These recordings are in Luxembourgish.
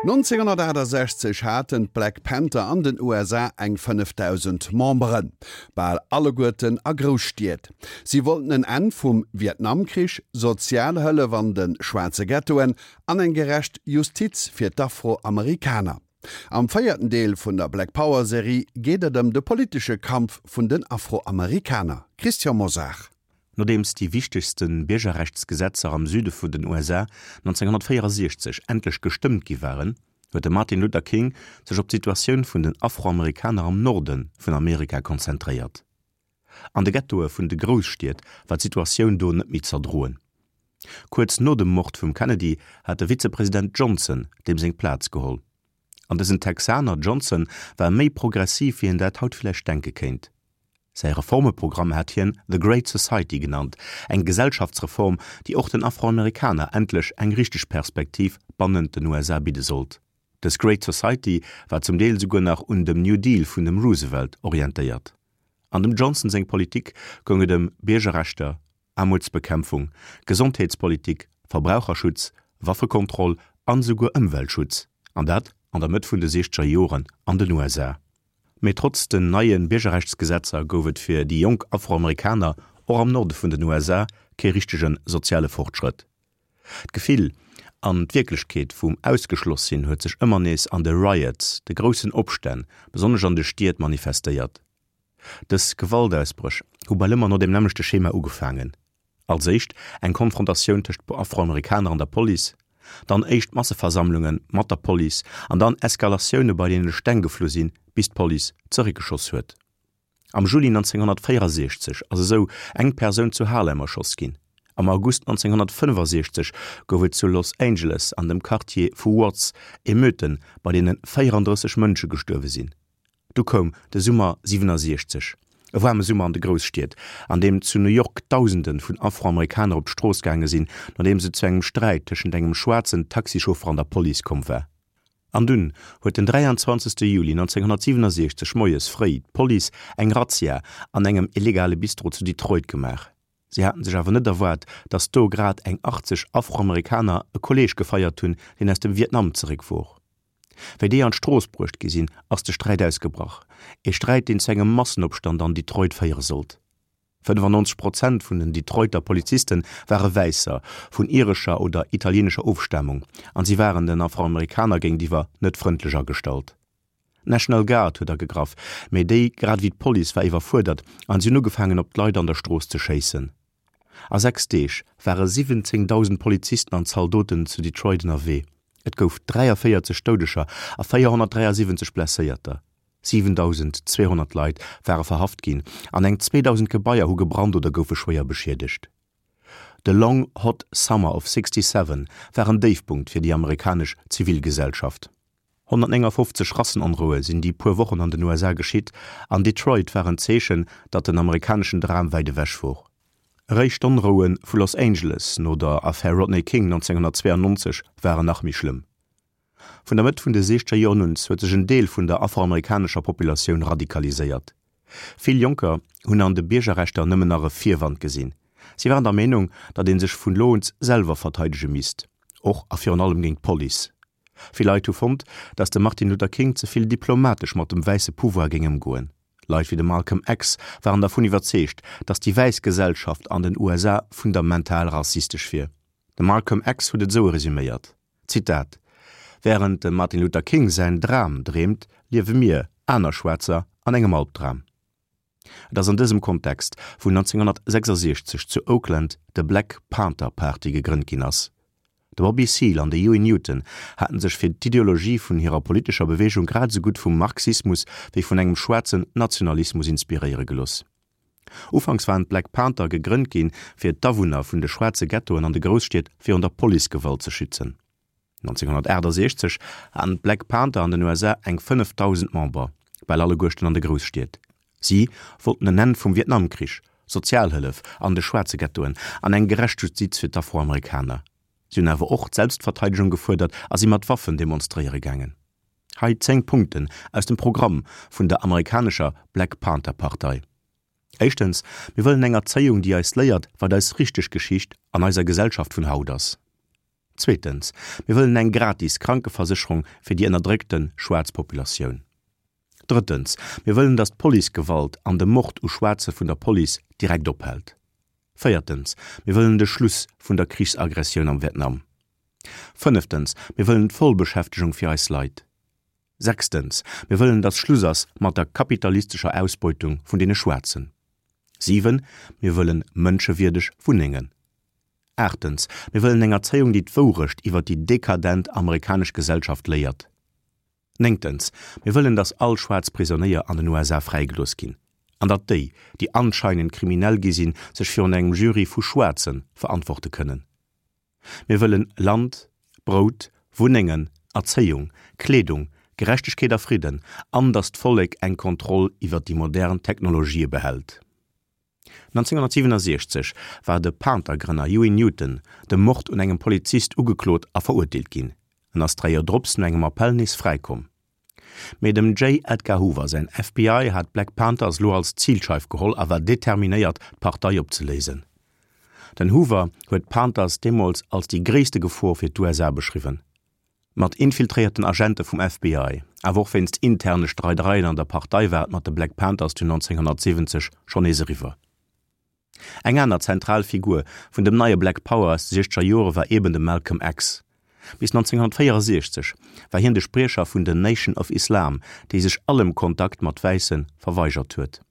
1968 haten d'Black Panther an den USA eng 5.000 Memberen, bal alleguerten a Grousstied. Si wollten en Enn vum Vietnamkrich, Sozialhëllef an de schwaarze Ghettoen an eng gerecht Justiz fir d'Afroamerikaner. Am véierten Deel vun der Black Power Serie geet et ëm de politesche Kampf vun den Afroamerikaner. Christian Mosar. Nodeems déi wichtegste Biergerrechtsgesetzer am Süde vun den USA 1964 endlech gestëmmt gi waren, huet de Martin Luther King sech op d'Situatioun vun den Afroamerikaner am Norde vun Amerika konzentréiert. An de Ghettoe vun de Grousstied war d'Situatioun do net méi z'erdroen. Kuerz no dem Mord vum Kennedy hat de Vizepresident Johnson deem seng Plaz geholl. An dësen Texaner Johnson war méi progressiv wéi een dat haut villäicht denke kéint. Säi Reformeprogramm hat hien The Great Society genannt, eng Gesellschaftsreform, déi och den Afroamerikaner endlech eng richteg Perspektiv bannent den USA bidde sollt. Dës Great Society war zum Deel souguer nach un dem New Deal vun dem Roosevelt orientéiert. An dem Johnson seng Politik goung et ëm Biergerrechter, Aarmutsbekämpfung, Gesondheetspolitik, Verbraucherschutz, Waffekontroll an esouguer Ëmweltschutz, an dat an der Mëtt vun de siechzeger Joren an den USA. Mee trotz den neie Biergerrechtsgesetzer gouf et fir déi jonk Afroamerikaner och am Norde vun den USA kee richtege soziale Fortschrëtt. D'Gefill an d'Wierklechkeet vum Ausgeschloss-Sinn huet sech ëmmer nees an de Riots, de groussen Opstänn, besonnesch an de Stied manifestéiert. Dës Gewaltausbréch hu bal ëmmer no deem nämmlechte Schema ugefaangen, Als éischt eng Konfrontatioun tëscht Afroamerikaner an der Police, dann éischt Masseversammlunge mat der Police an dann Eskalatioune bei deene Steng geflu sinn, bis d'Police zeréckgeschoss huet. Am Juli 1964 ass esou eng Persoun zu Harlem erschoss ginn. Am August 1965 gouf et zu Los Angeles an dem Quartier vu Watts Emeuten, bei deene 34 Mënsche gestuerwe sinn. Du koum de Summer 67, e waarme Summer an de Grousstied, an deem zu New York Dausende vun Afroamerikaner op d'Strooss gaange sinn, nodeems et zu engem Sträit tëschent engem schwaarzen Taxichauffer an der Police komm war. An dunn huet den 23. Juli 1967 moies fréi d'Police eng Razzia an engem illegale Bistro zu Detroit gemaach. Si haten sech awer net erwaart, datt do grad eng 80 Afroamerikaner e Kolleeg gefeiert hunn, deen aus dem Vietnam zeréck wor. Wéi déi an d'Strooss bruecht gi sinn, ass de Sträit ausgebrach. Ee Sträit, deen zu engem Massenopstand an Detroit féiere sollt. 95 Prozent vun den Detroiter Poliziste ware Wäisser, vun irescher oder italieenescher Ofstamung, an si waren den Afroamerikaner géintiwwer net frëndlech agestallt. D'National Guard huet agegraff, mee déi, grad ewéi d'Police, war iwwerfuerdert an si hunn ugefaangen op d'Leit an der Strooss ze schéissen. A 6 Deeg ware 17.000 Polizisten an Zaldoten zu Detroit ënnerwee. Et gouf 43 Doudeger a 473 Blesséierter. 7.200 Leit ware verhaft ginn an eng 2.000 Gebaier hu gebrannt oder goufe schwéier beschiedegt. De Long Hot Summer of 67 war en Déifpunkt fir déi amerikanesch Zivilgesellschaft. 159 Rassenonroue sinn déi puer Wochen an den USA geschitt, an Detroit war en Zeechen, datt den amerikaneschen Dram wäit ewech wor. Eréischt d'Onroue vu Los Angeles no der Affär Rodney King 1992 waren nach méi schlëmm. Vun der Mëtt vun de siechzeger Joren un huet sech en Deel vun der afroamerikanescher Populatioun radikaliséiert. Vill Jonker hunn an de Biergerrechter nëmmen nach e Virwand gesinn. Si waren der Meenung, datt ee sech vun lo un selwer verteidege misst, och a virun allem géint d'Police. Vill Leit hu fonnt, datt de Martin Luther King ze vill diplomatesch mat dem wäisse Pouvoir géing ëmgoen. Leit wéi de Malcolm X waren dervun iwwerzeegt, datt déi wäiss Gesellschaft an den USA fundamental rassistesch wier. De Malcolm X huet et esou resuméiert, Zitat, Wärend de Martin Luther King säin Dram dreemt, liewe mir, aner Schwaarzer, an engem Albdram. Et ass an dësem Kontext, wou 1966 zu Oakland de Black Panther Party gegrënnt ginn ass. De Bobby Seale an de Huey Newton haten sech fir d'Ideologie vun hirer politescher Beweegung grad esou gutt vum Marxismus wéi vun engem schwaarzen Nationalismus inspiréiere gelooss. Ufanks waren d'Black Panther gegrënnt ginn, fir d'Awunner vun de schwaarze Ghettoen an de Grousstied virun der Policegewalt ze schützen. 1968 haten d'Black Panther an den USA eng 5.000 Member, bal alleguerten an de Grousstied. Si wollten en Enn vum Vietnamkrich, Sozialhëllef an de schwaarze Ghettoen an eng gerecht Justiz fir d'Afroamerikaner. Si hunn awer och d'Selbstverteidegung gefuerdert a si mat Waffen demonstréiere gaangen. Hei 10 Punkten aus dem Programm vun der amerikanescher Black Panther Partei. Éischtens, mir wëllen eng Erzéiung, déi eis léiert, wat eis richteg Geschicht an eiser Gesellschaft vun haut ass. Zweetens, mir wëllen eng gratis Krankeversécherung fir déi ënnerdréckte schwaarz Populatioun. Drëttens, mir wëllen, datt d'Policegewalt an de Mord u Schwaarze vun der Police direkt ophält. Véiertens, mir wëllen de Schluss vun der Krichsaggressioun am Vietnam. Fënneftens, mir wëllen d'Vollbeschäftegung fir eis Leit. Sechstens, mir wëllen, datt Schluss ass mat der kapitalistescher Ausbeutung vun deene Schwaarzen. 7, mir wëllen mënschewierdeg Wunnengen. Aachtens, mir wëllen eng Erzéiung, déi d'Wourecht iwwer déi dekadent amerikanesch Gesellschaft léiert. Néngtens, mir wëllen, datt all schwaarz Prisonéier an den USA fräigelooss ginn an datt déi, déi anscheinend kriminell gi sinn, sech virun engem Jury vu Schwaarze verantworte kënnen. Mir wëllen Land, Brout, Wunnengen, Erzéiung, Kleedung, Gerechtegkeet a Fridden an datt d'Vollek eng Kontroll iwwer déi modern Technologië behält. 1967 war de Panther-Grënner Huey Newton dem Mord un engem Polizist ugeklot a verurteelt ginn. En ass 3 Joer drops no engem Appell nees fräikomm. Mee dem J. Edgar Hoover säin FBI hat d'Black Panthers lo als Zilscheif geholl a war determinéiert, d'Partei opzeléisen. Den Hoover huet d'Panthers deemools als déi gréisste Gefor fir d'USA beschriwwen. Mat infiltréierten Agente vum FBI, awer och wéinst interne Streidereien an der Partei war et mat de Black Panthers dunn 1970 schonn nees eriwwer. Eng aner zentral Figur vun dem neie Black Power aus de siechzeger Jore war eben de Malcolm X. Bis 1964 war hien de Spriecher vun den Nation of Islam, déi sech allem Kontakt mat Wäisse verweigert huet.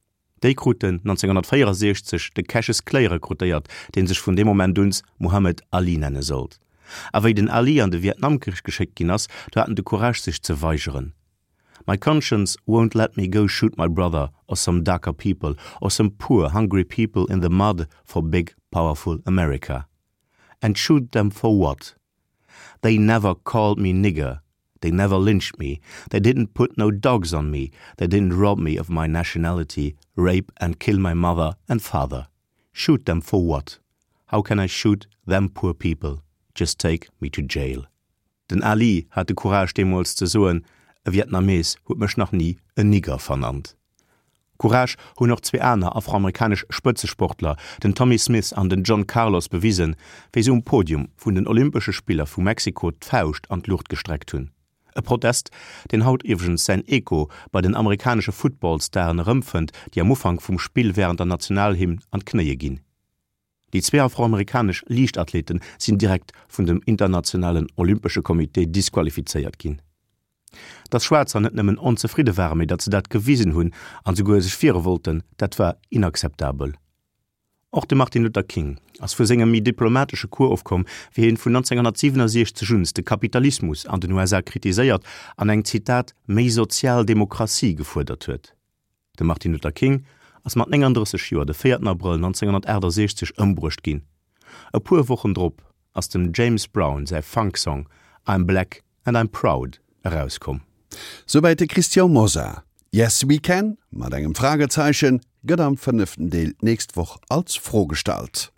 Déi kruten 1964 de Cassius Clay rekrutéiert, dee sech vun deem Moment uns Muhammad Ali nenne sollt. A wéi den Ali an de Vietnamkrich geschéckt ginn ass, do hat en de Courage sech ze weigeren. My conscience won't let me go shoot my brother or some darker people or some poor hungry people in the mud for big powerful America. And shoot them for what? They never called me nigger, They never lynched me, they didn't put no dogs on me, they didn't rob me of my nationality, rape and kill my mother and father. Shoot them for what? How can I shoot them poor people? Just take me to jail. Den Ali hat de Courage deemools ze soen, E Vietnamees huet mech nach ni en Nigger vernannt. Courage hunn och zwee aner afroamerikanesch Spëtzesportler, den Tommie Smith an den John Carlos, bewisen, wéi se um Podium vun den Olympesche Spiller vu Mexiko d'Fauscht an d'Luucht gestreckt hunn. E Protest, deen haut iwwregens säin Echo bei den amerikanesche Footballstaren erëmfënnt, déi am Ufank vum Spill wärend der Nationalhymn an d'Knéie ginn. Déi zwee afroamerikanesch Liichtathlete sinn direkt vun dem internationalen Olympesche Comité disqualifizéiert ginn. Datt Schwaarzer net nëmmen onzefridde waren, mee datt se dat gewisen hunn an souguer sech wiere wollten, dat war inakzeptabel. Och de Martin Luther King ass vu sengem méi diplomatesche Cours ofkomm, wéi hien vun 1967 un de Kapitalismus an den USA kritiséiert an eng, Zitat, méi sozial Demokratie gefuerdert huet. De Martin Luther King ass mat 39 Joer de 4 Abrëll 1968 ëmbruecht ginn. E puer Wochen drop ass dem James Brown säi Funk-Song I'm Black and I'm Proud erauskomm. Souwäit de Christian Mosar. Yes We Can? mat engem Fragezeichen gëtt am fënneften Deel d'nächst Woch als Fro gestallt.